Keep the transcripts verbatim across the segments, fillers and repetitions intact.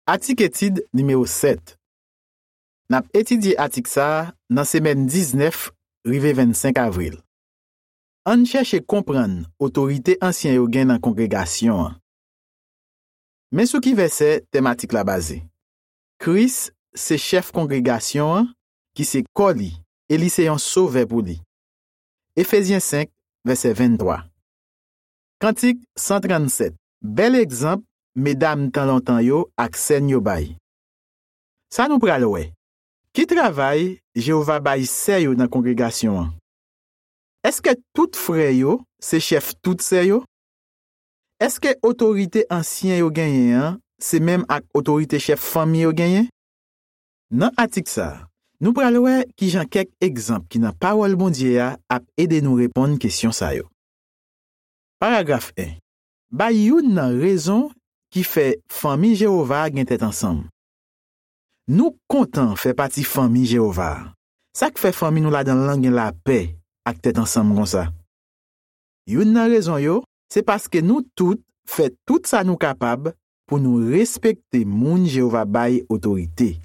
Atik etid nimewo sèt. N ap etidye atik sa a nan semèn diznèf rive vennsenk avril. Ann chèche konprann otorite ansyen yo gen nan kongregasyon an. Men sou ki vèsè tèm atik la baze. Kris se chèf kongregasyon an, ki se kò li, e li se yon sovè pou li. Efezyen senk, vèsè venntwa. Kantik san trannsèt. Bèl egzanp medam tan lontan yo ak sè n yo bay. Sa nou pral wè. Ki travay Jewova bay sè yo nan kongregasyon an? Èske tout frè yo se chèf tout sè yo? Èske otorite ansyen yo genyen an se menm ak otorite chèf fanmi yo genyen? Nan atik sa a, nou pral wè ki jan kèk egzanp ki nan Pawòl Bondye a ap ede nou reponn kesyon sa yo. Paragraf en. Bay youn nan rezon ki fè fanmi Jewova a gen tèt ansanm. Nou kontan fè pati fanmi Jewova a. Sa k fè fanmi nou ladan l lan gen lapè ak tèt ansanm konsa? Youn nan rezon yo, se paske nou tout fè tout sa nou kapab pou nou respekte moun Jewova bay otorite.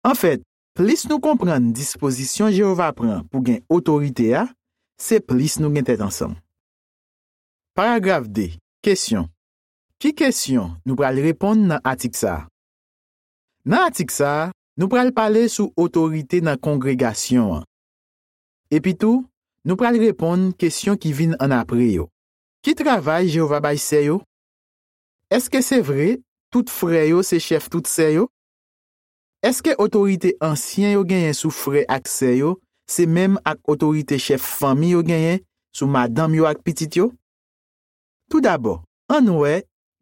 Anfèt, plis nou konprann dispozisyon Jewova pran pou gen otorite a, se plis nou gen tèt ansanm. Paragraf de. Kesyon. Ki kesyon nou pral reponn nan atik sa a? Nan atik sa a, nou pral pale sou otorite nan kongregasyon an. Epitou, nou pral reponn kesyon ki vin annapre yo. Ki travay Jewova bay sè yo? Èske se vre tout frè yo se chèf tout sè yo? Èske otorite ansyen yo genyen sou frè ak sè yo se menm ak otorite chèf fanmi yo genyen sou madanm yo ak pitit yo? Toudabò, ann wè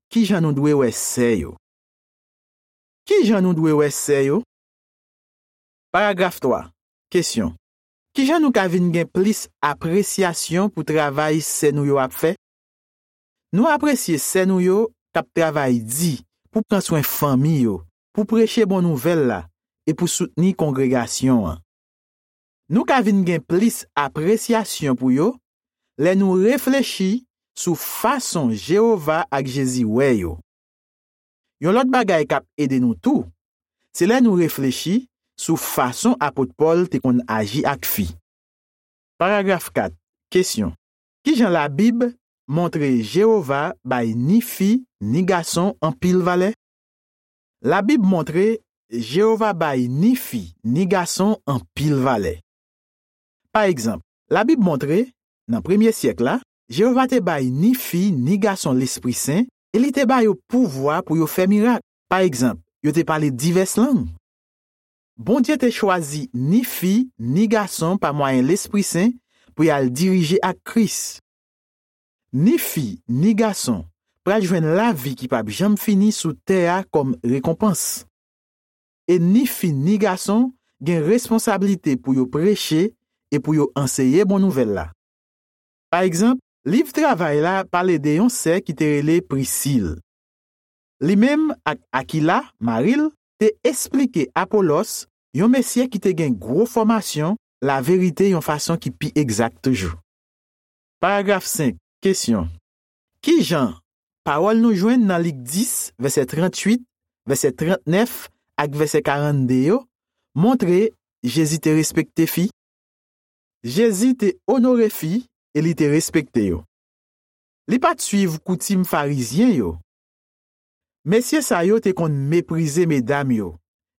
ki jan nou dwe wè sè yo. Ki jan nou dwe wè sè yo? Paragraf twa. Kesyon. Ki jan nou ka vin gen plis apresyasyon pou travay sè nou yo ap fè? Nou apresye sè nou yo k ap travay di pou pran swen fanmi yo, pou preche bon nouvèl la e pou soutni kongregasyon an. Nou ka vin gen plis apresyasyon pou yo lè nou reflechi sou fason Jewova ak Jezi wè yo. Yon lòt bagay k ap ede nou tou, se lè nou reflechi sou fason apot Pòl te konn aji ak fi. Paragraf kat. Kesyon. Ki jan Labib montre Jewova bay ni fi ni gason anpil valè? Labib montre Jewova bay ni fi ni gason anpil valè. Pa egzanp, Labib montre, nan premye syèk la, Jewova te bay ni fi ni gason Lespri Sen e li te ba yo pouvwa pou yo fè mirak. Pa egzanp, yo te pale divès lang. Bondye te chwazi ni fi ni gason pa mwayen Lespri Sen pou y al dirije ak Kris. Ni fi ni gason pral jwenn lavi ki p ap janm fini sou tè a kòm rekonpans. E ni fi ni gason gen responsablite pou yo preche e pou yo anseye bon nouvèl la. Pa egzanp, liv Travay la pale de yon sè ki te rele Prisil. Li menm ak Akila, mari l, te esplike Apolòs, yon mesye ki te gen gwo fòmasyon, laverite yon fason ki pi egzak toujou. Paragraf senk. Kesyon. Ki jan pawòl nou jwenn nan Lik dis, vèsè tranntuit, vèsè trantnèf ak vèsè karannde yo montre Jezi te respekte fi? Jezi te onore fi e li te respekte yo. Li pa t suiv koutim Farizyen yo. Mesye sa yo te konn meprize medam yo,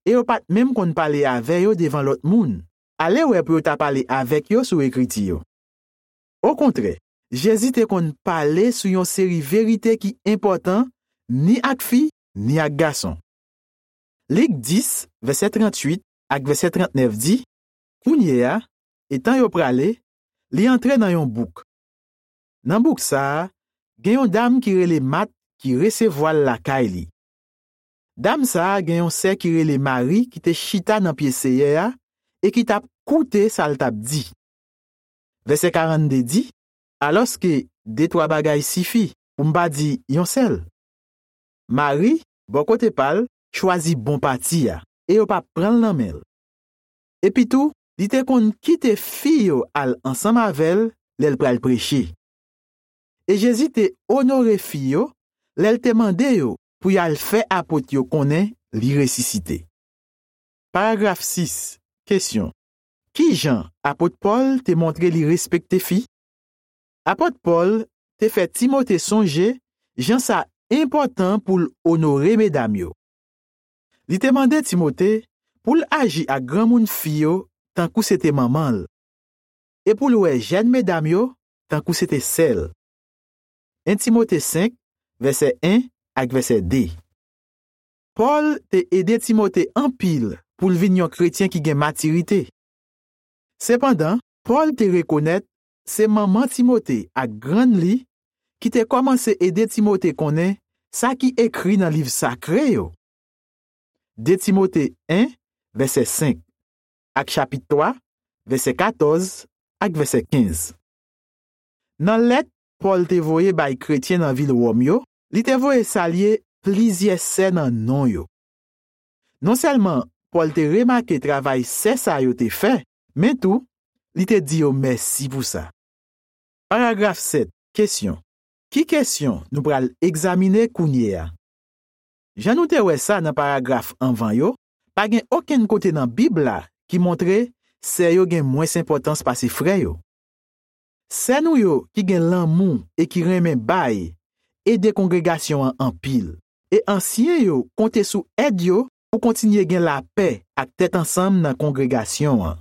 e yo pa t menm konn pale avè yo devan lòt moun. Ale wè pou yo ta pale avèk yo sou Ekriti yo. Okontrè, Jezi te konn pale sou yon seri verite ki enpòtan ni ak fi, ni ak gason. Lik dis, vèsè tranntuit ak vèsè trantnèf di, kounye a, etan yo prale, li antre nan yon bouk. Nan bouk sa a, gen yon dam ki rele Mat ki resevwa l lakay li. Dam sa a gen yon sè ki rele Mari ki te chita nan pye Seyè a e ki t ap koute sa l t ap di. Vèsè karannde di, alòske de twa bagay sifi, pou m pa di yon sèl. Mari, bò kote pa l, chwazi bon pati a, e yo pa pran l nan men l. Epitou, li te konn kite fi yo al ansanm avè l lè l pral preche. E Jezi te onore fi yo lè l te mande yo pou y al fè apot yo konnen li resisite. Paragraf sis. Kesyon. Ki jan apot Pòl te montre li respekte fi? Apot Pòl te fè Timote sonje jan sa enpòtan pou l onore medam yo. Li te mande Timote pou l aji ak granmoun fi yo tankou se te manman l, e pou l wè jèn medam yo tankou se te sè l. En Timote senk, vèsè en ak vèsè de. Pòl te ede Timote anpil pou l vin yon kretyen ki gen matirite. Sepandan, Pòl te rekonèt se manman Timote ak grann li ki te kòmanse ede Timote konnen sa ki ekri nan liv sakre yo. De Timote en, vèsè senk, ak chapit twa, vèsè katòz ak vèsè kenz. Nan lèt Pòl te voye bay kretyen nan vil Wòm yo, li te voye salye plizyè sè nan non yo. Non sèlman Pòl te remake travay sè sa yo te fè, men tou, li te di yo mèsi pou sa. Paragraf sèt. Kesyon. Ki kesyon nou pral egzamine kounye a? Jan nou te wè sa nan paragraf anvan yo, pa gen okenn kote nan Bib la ki montre sè yo gen mwens enpòtans pase frè yo. Sè nou yo ki gen lanmou e ki renmen bay ede kongregasyon an anpil, e ansyen yo konte sou èd yo pou kontinye gen lapè ak tèt ansanm nan kongregasyon an.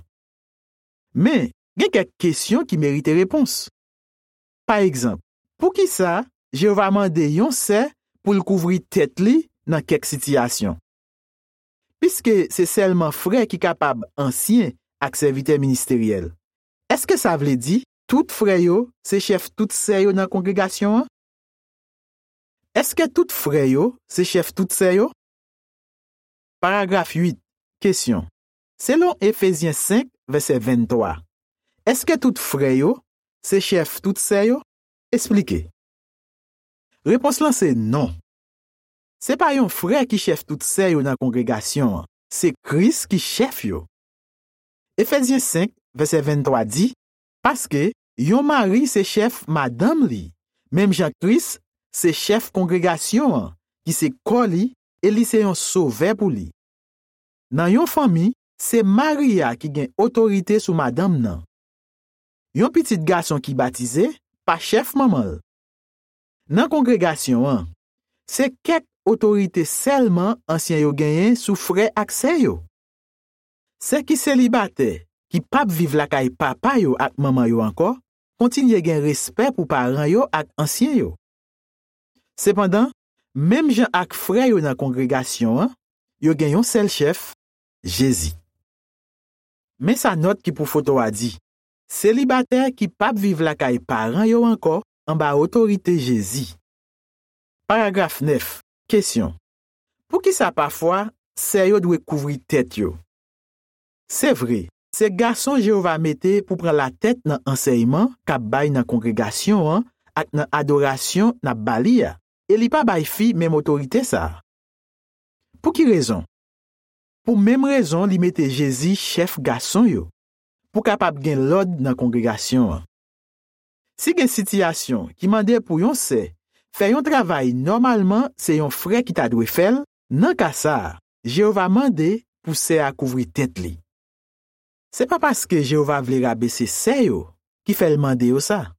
Men, gen kèk kesyon ki merite repons. Pa egzanp, poukisa Jewova mande yon sè pou l kouvri tèt li nan kèk sitiyasyon? Piske se sèlman frè ki kapab ansyen ak sèvitè ministeryèl, èske sa vle di tout frè yo se chèf tout sè yo nan kongregasyon an? Èske tout frè yo se chèf tout sè yo? Paragraf uit. Kesyon. Selon Efezyen senk, vèsè venntwa, èske tout frè yo se chèf tout sè yo? Esplike. Repons lan se non. Se pa yon frè ki chèf tout sè yo nan kongregasyon an. Se Kris ki chèf yo. Efezyen senk, vèsè venntwa di, paske yon mari se chèf madanm li, menm jan Kris se chèf kongregasyon an, ki se kò li, e li se yon sovè pou li. Nan yon fanmi, se mari a ki gen otorite sou madanm nan. Yon pitit gason ki batize pa chèf manman l. Nan kongregasyon an, se kèk otorite sèlman ansyen yo genyen sou frè ak sè yo. Sè ki selibatè, ki p ap viv lakay papa yo ak manman yo ankò, kontinye gen respè pou paran yo ak ansyen yo. Sepandan, menm jan ak frè yo nan kongregasyon an, yo gen yon sèl chèf, Jezi. Men sa nòt ki pou foto a di, selibatè ki p ap viv lakay paran yo ankò anba otorite Jezi. Paragraf nèf. Kesyon. Poukisa pafwa sè yo dwe kouvri tèt yo? Se vre, se gason Jewova mete pou pran latèt nan ansèyman k ap bay nan kongregasyon an ak nan adorasyon n ap ba li a, e li pa bay fi menm otorite sa a. Pou ki rezon? Pou menm rezon li mete Jezi chèf gason yo, pou kapab gen lòd nan kongregasyon an. Si gen sitiyasyon ki mande pou yon sè fè yon travay nòmalman se yon frè ki ta dwe fè l, nan ka sa a, Jewova mande pou sè a kouvri tèt li. Se pa paske Jewova vle rabese sè yo ki fè l mande yo sa,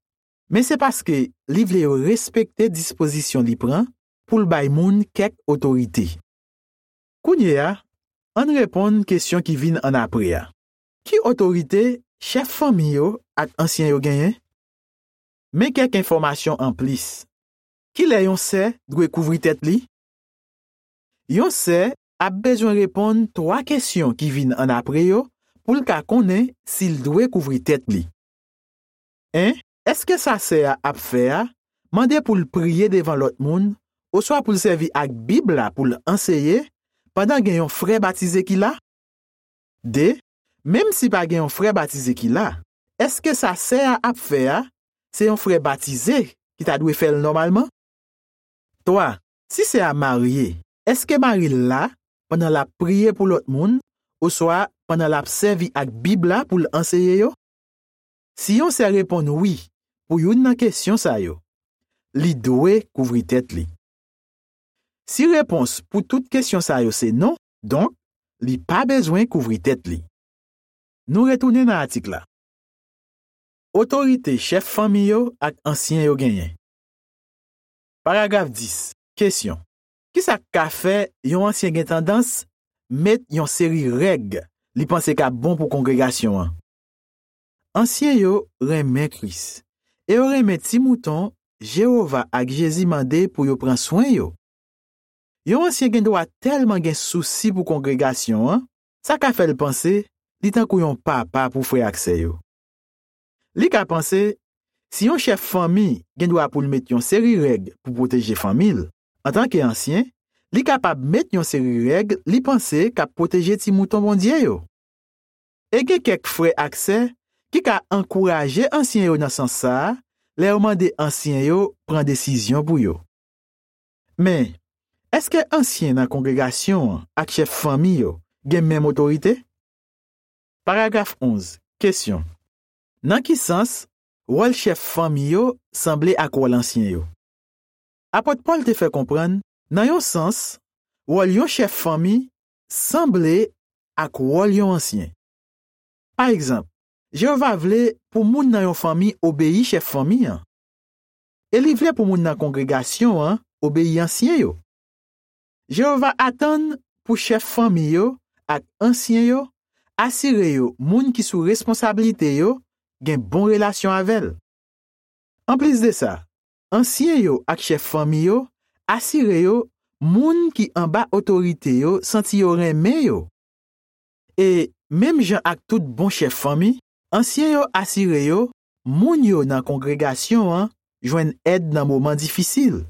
men se paske li vle yo respekte dispozisyon li pran pou l bay moun kèk otorite. Kounye a, ann reponn kesyon ki vin annapre a. Ki otorite chèf fanmi yo ak ansyen yo genyen? Men kèk enfòmasyon anplis. Kilè yon sè dwe kouvri tèt li? Yon sè ap bezwen reponn twa kesyon ki vin annapre yo pou l ka konnen si l dwe kouvri tèt li. En, èske sa sè a ap fè a mande pou l priye devan lòt moun oswa pou l sèvi ak Bib la pou l anseye pandan gen yon frè batize ki la? De, menm si pa gen yon frè batize ki la, èske sa sè a ap fè a se yon frè batize ki ta dwe fè l nòmalman? Twa, si sè a marye, èske mari l la pandan l ap priye pou lòt moun oswa pandan l ap sèvi ak Bib la pou l anseye yo? Si yon sè reponn wi pou youn nan kesyon sa yo, li dwe kouvri tèt li. Si repons pou tout kesyon sa yo se non, donk, li pa bezwen kouvri tèt li. Nou retounen nan atik la. Otorite chèf fanmi yo ak ansyen yo genyen. Paragraf dis. Kesyon. Kisa k ka fè yon ansyen gen tandans met yon seri règ li panse k ap bon pou kongregasyon an? Ansyen yo renmen Kris e yo renmen ti mouton Jewova ak Jezi mande pou yo pran swen yo. Yon ansyen gen dwa tèlman gen sousi pou kongregasyon an, sa ka fè l panse li tankou yon papa pou frè ak sè yo. Li ka panse, si yon chèf fanmi gen dwa pou l met yon seri règ pou pwoteje fanmi l, antanke ansyen, li kapab met yon seri règ li panse k ap pwoteje ti mouton Bondye yo. E gen kèk frè ak sè ki ka ankouraje ansyen yo nan sans sa a lè yo mande ansyen yo pran desizyon pou yo. Men, èske ansyen nan kongregasyon an ak chèf fanmi yo gen menm otorite? Paragraf onz. Kesyon. Nan ki sans wòl chèf fanmi yo sanble ak wòl ansyen yo? Apot Pòl te fè konprann, nan yon sans, wòl yon chèf fanmi sanble ak wòl yon ansyen. Pa egzanp, Jewova vle pou moun nan yon fanmi obeyi chèf fanmi an. E li vle pou moun nan kongregasyon an obeyi ansyen yo. Jewova atann pou chèf fanmi yo ak ansyen yo asire yo moun ki sou responsablite yo gen bon relasyon avè l. Anplis de sa, ansyen yo ak chèf fanmi yo asire yo moun ki anba otorite yo santi yo renmen yo. E menm jan ak tout bon chèf fanmi, ansyen yo asire yo moun yo nan kongregasyon an jwenn èd nan moman difisil.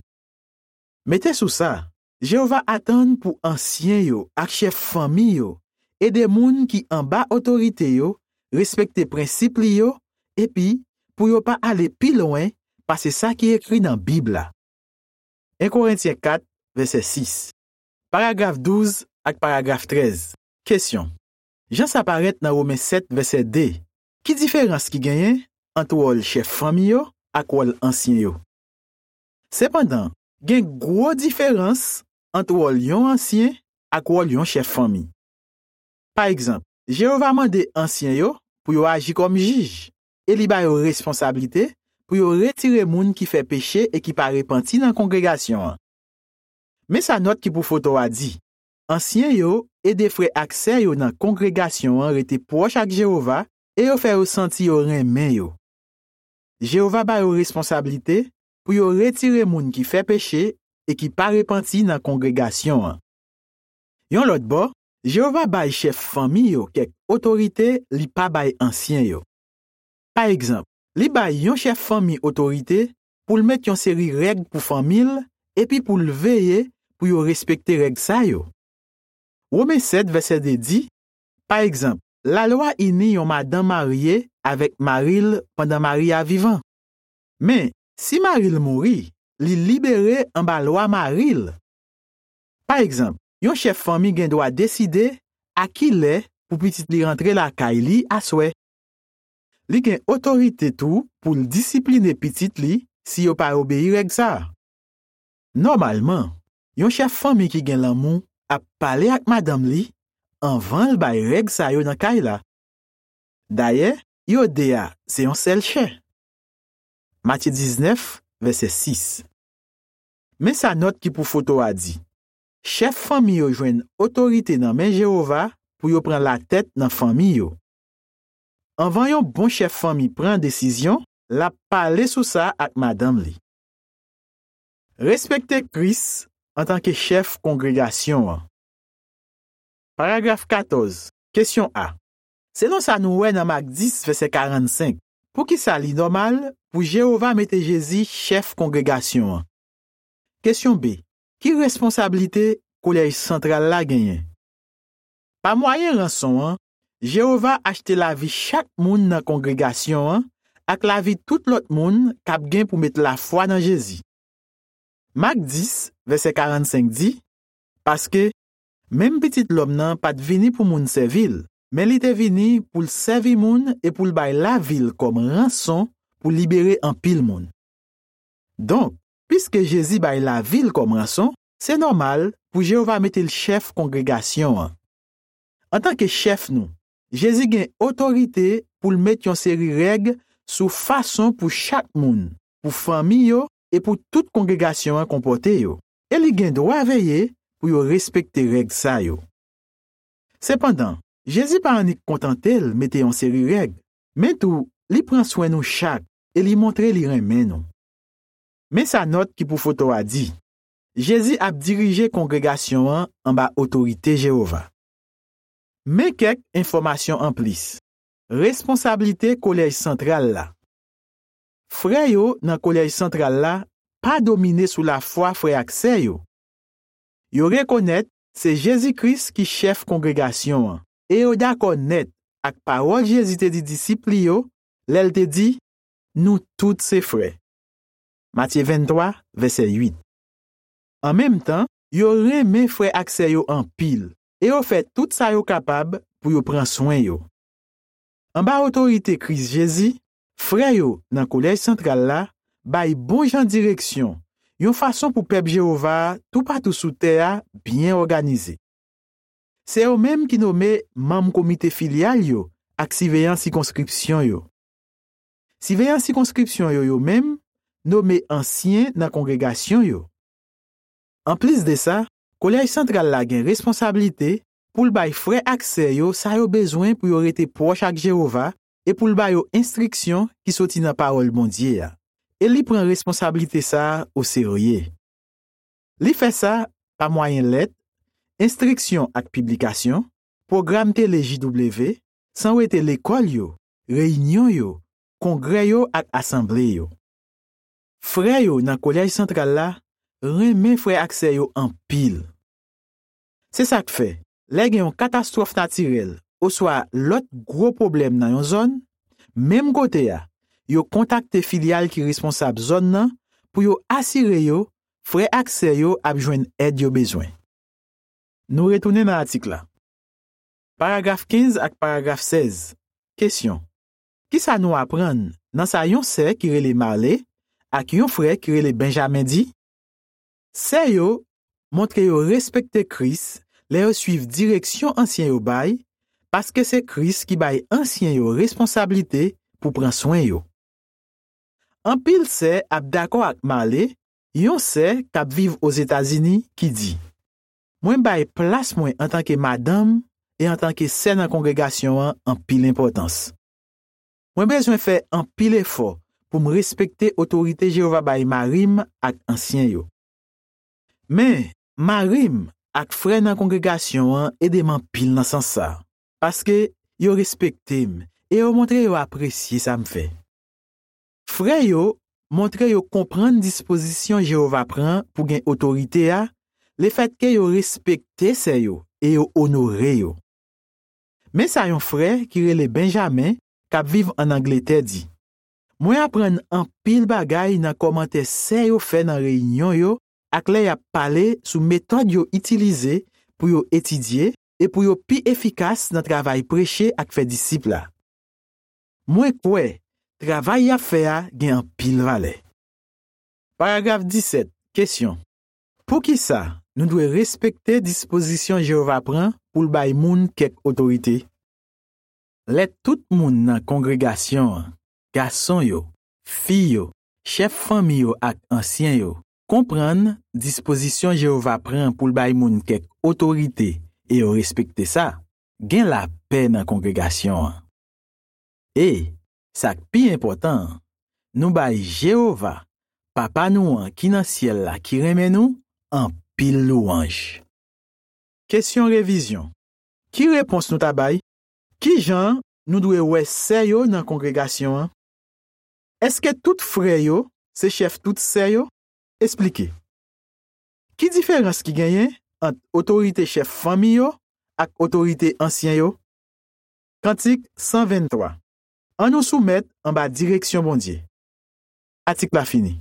Mete sou sa, Jewova atann pou ansyen yo ak chèf fanmi yo ede moun ki anba otorite yo respekte prensip li yo epi pou yo pa ale pi lwen pase sa ki ekri nan Bib la. En Korentyen kat, vèsè sis. Paragraf douz ak paragraf trèz. Kesyon. Jan sa parèt nan Women sèt, vèsè de, ki diferans ki genyen ant wòl chèf fanmi yo ak wòl ansyen yo? Sepandan, gen gwo diferans ant wòl yon ansyen ak wòl yon chèf fanmi. Pa egzanp, Jewova mande ansyen yo pou yo aji kòm jij, e li ba yo responsablite pou yo retire moun ki fè peche e ki pa repanti nan kongregasyon an. Men sa nòt ki pou foto a di, ansyen yo ede frè ak sè yo nan kongregasyon an rete pwòch ak Jewova e yo fè yo santi yo renmen yo. Jewova ba yo responsablite pou yo retire moun ki fè peche e ki pa repanti nan kongregasyon an. Yon lòt bò, Jewova bay chèf fanmi yo kèk otorite li pa bay ansyen yo. Pa egzanp, li bay yon chèf fanmi otorite pou l met yon seri règ pou fanmi l epi pou l veye pou yo respekte règ sa yo. Women sèt, vèsè de di, pa egzanp, lalwa ini yon madanm marye avèk mari l pandan mari a vivan. Men, si mari l mouri, li libere anba lwa mari l. Pa egzanp, yon chèf fanmi gen dwa deside a ki lè pou pitit li rantre lakay li aswè. Li gen otorite tou pou l disipline pitit li si yo pa obeyi règ sa a. Nòmalman, yon chèf fanmi ki gen lanmou ap pale ak madanm li anvan l bay règ sa yo nan kay la. Dayè, yo de a se yon sèl chè. Matye diznèf, vèsè sis. Men sa nòt ki pou foto a di, chèf fanmi yo jwenn otorite nan men Jewova pou yo pran latèt nan fanmi yo. Anvan yon bon chèf fanmi pran desizyon, l ap pale sou sa ak madanm li. Respekte Kris antanke chèf kongregasyon an. Paragraf katòz. Kesyon A. Selon sa nou wè nan Mak dis, vèsè karannsenk, poukisa li nòmal pou Jewova mete Jezi chèf kongregasyon an? Kesyon B. Ki responsablite kolèj santral la genyen? Pa mwayen ranson an, Jewova achte lavi chak moun nan kongregasyon an ak lavi tout lòt moun k ap gen pou met lafwa nan Jezi. Mak dis, vèsè karannsenk di, paske, menm Pitit Lòm nan pa t vini pou moun sèvi l, men li te vini pou l sèvi moun e pou l bay lavi l kòm ranson pou libere anpil moun. Donk, piske Jezi bay lavi l kòm ranson, se nòmal pou Jewova mete l chèf kongregasyon an. Antanke chèf nou, Jezi gen otorite pou l met yon seri règ sou fason pou chak moun, pou fanmi yo e pou tout kongregasyon an konpòte yo, e li gen dwa veye pou yo respekte règ sa yo. Sepandan, Jezi pa annik kontante l mete yon seri règ, men tou, li pran swen nou chak e li montre li renmen nou. Men sa nòt ki pou foto a di: Jezi ap dirije kongregasyon an anba otorite Jewova. Men kèk enfòmasyon anplis. Responsablite kolèj santral la. Frè yo nan kolèj santral la pa domine sou lafwa frè ak sè yo. Yo rekonèt se Jezi Kris ki chèf kongregasyon an, e yo dakò nèt ak pawòl Jezi te di disip li yo lè l te di: Nou tout se frè. Matye venntwa, vèsè uit. An menm tan, yo renmen frè ak sè yo anpil, e yo fè tout sa yo kapab pou yo pran swen yo. Anba otorite Kris Jezi, frè yo nan kolèj santral la bay bon jan direksyon, yon fason pou pèp Jewova a toupatou sou tè a byen òganize. Se yo menm ki nome manm komite filyal yo ak siveyan sikonskripsyon yo. Siveyan sikonskripsyon yo, yo menm, nome ansyen nan kongregasyon yo. Anplis de sa, kolèj santral la gen responsablite pou l bay frè ak sè yo sa yo bezwen pou yo rete pwòch ak Jewova e pou l ba yo enstriksyon ki soti nan Pawòl Bondye a. E li pran responsablite sa a oserye. Li fè sa pa mwayen lèt, enstriksyon ak piblikasyon, pwogram tele J W, san wete lekòl yo, reyinyon yo, kongrè yo ak asanble yo. Frè yo nan kolèj santral la renmen frè ak sè yo anpil. Se sa k fè, lè gen yon katastwòf natirèl oswa lòt gwo pwoblèm nan yon zòn, menm kote a, yo kontakte filyal ki responsab zòn nan pou yo asire yo frè ak sè yo ap jwenn èd yo bezwen. Nou retounen nan atik la. Paragraf kenz ak paragraf sèz. Kesyon: Ki sa nou aprann nan sa yon sè ki rele Marley ak yon frè ki rele Benjamin di? Sè yo montre yo respekte Kris lè yo suiv direksyon ansyen yo bay, paske se Kris ki bay ansyen yo responsablite pou pran swen yo. Anpil sè ap dakò ak Marley, yon sè k ap viv Ozetazini, ki di: Mwen bay plas mwen antanke madanm e antanke sè nan kongregasyon an anpil enpòtans. Mwen bezwen fè anpil efò pou m respekte otorite Jewova bay mari m ak ansyen yo. Men, mari m ak frè nan kongregasyon an ede m anpil nan sans sa a, paske yo respekte m e yo montre yo apresye sa m fè. Frè yo montre yo konprann dispozisyon Jewova pran pou gen otorite a, lefètke yo respekte sè yo e yo onore yo. Men sa yon frè ki rele Benjamin, k ap viv ann Angletè, di: Mwen aprann anpil bagay nan kòmantè sè yo fè nan reyinyon yo ak lè y ap pale sou metòd yo itilize pou yo etidye e pou yo pi efikas nan travay preche ak fè disip la. Mwen kwè travay y ap fè a gen anpil valè. Paragraf disèt. Kesyon: Poukisa nou dwe respekte dispozisyon Jewova pran pou l bay moun kèk otorite? Lè tout moun nan kongregasyon an, gason yo, fi yo, chèf fanmi yo ak ansyen yo, konprann dispozisyon Jewova pran pou l bay moun kèk otorite e yo respekte sa, gen lapè nan kongregasyon an. E, sa k pi enpòtan an, nou bay Jewova, Papa nou an ki nan syèl la ki renmen nou, anpil louwanj. Kesyon revizyon. Ki repons nou ta bay? Ki jan nou dwe wè sè yo nan kongregasyon an? Èske tout frè yo se chèf tout sè yo? Esplike. Ki diferans ki genyen ant otorite chèf fanmi yo ak otorite ansyen yo? Kantik san venntwa. Ann nou soumèt anba direksyon Bondye. Atik la fini.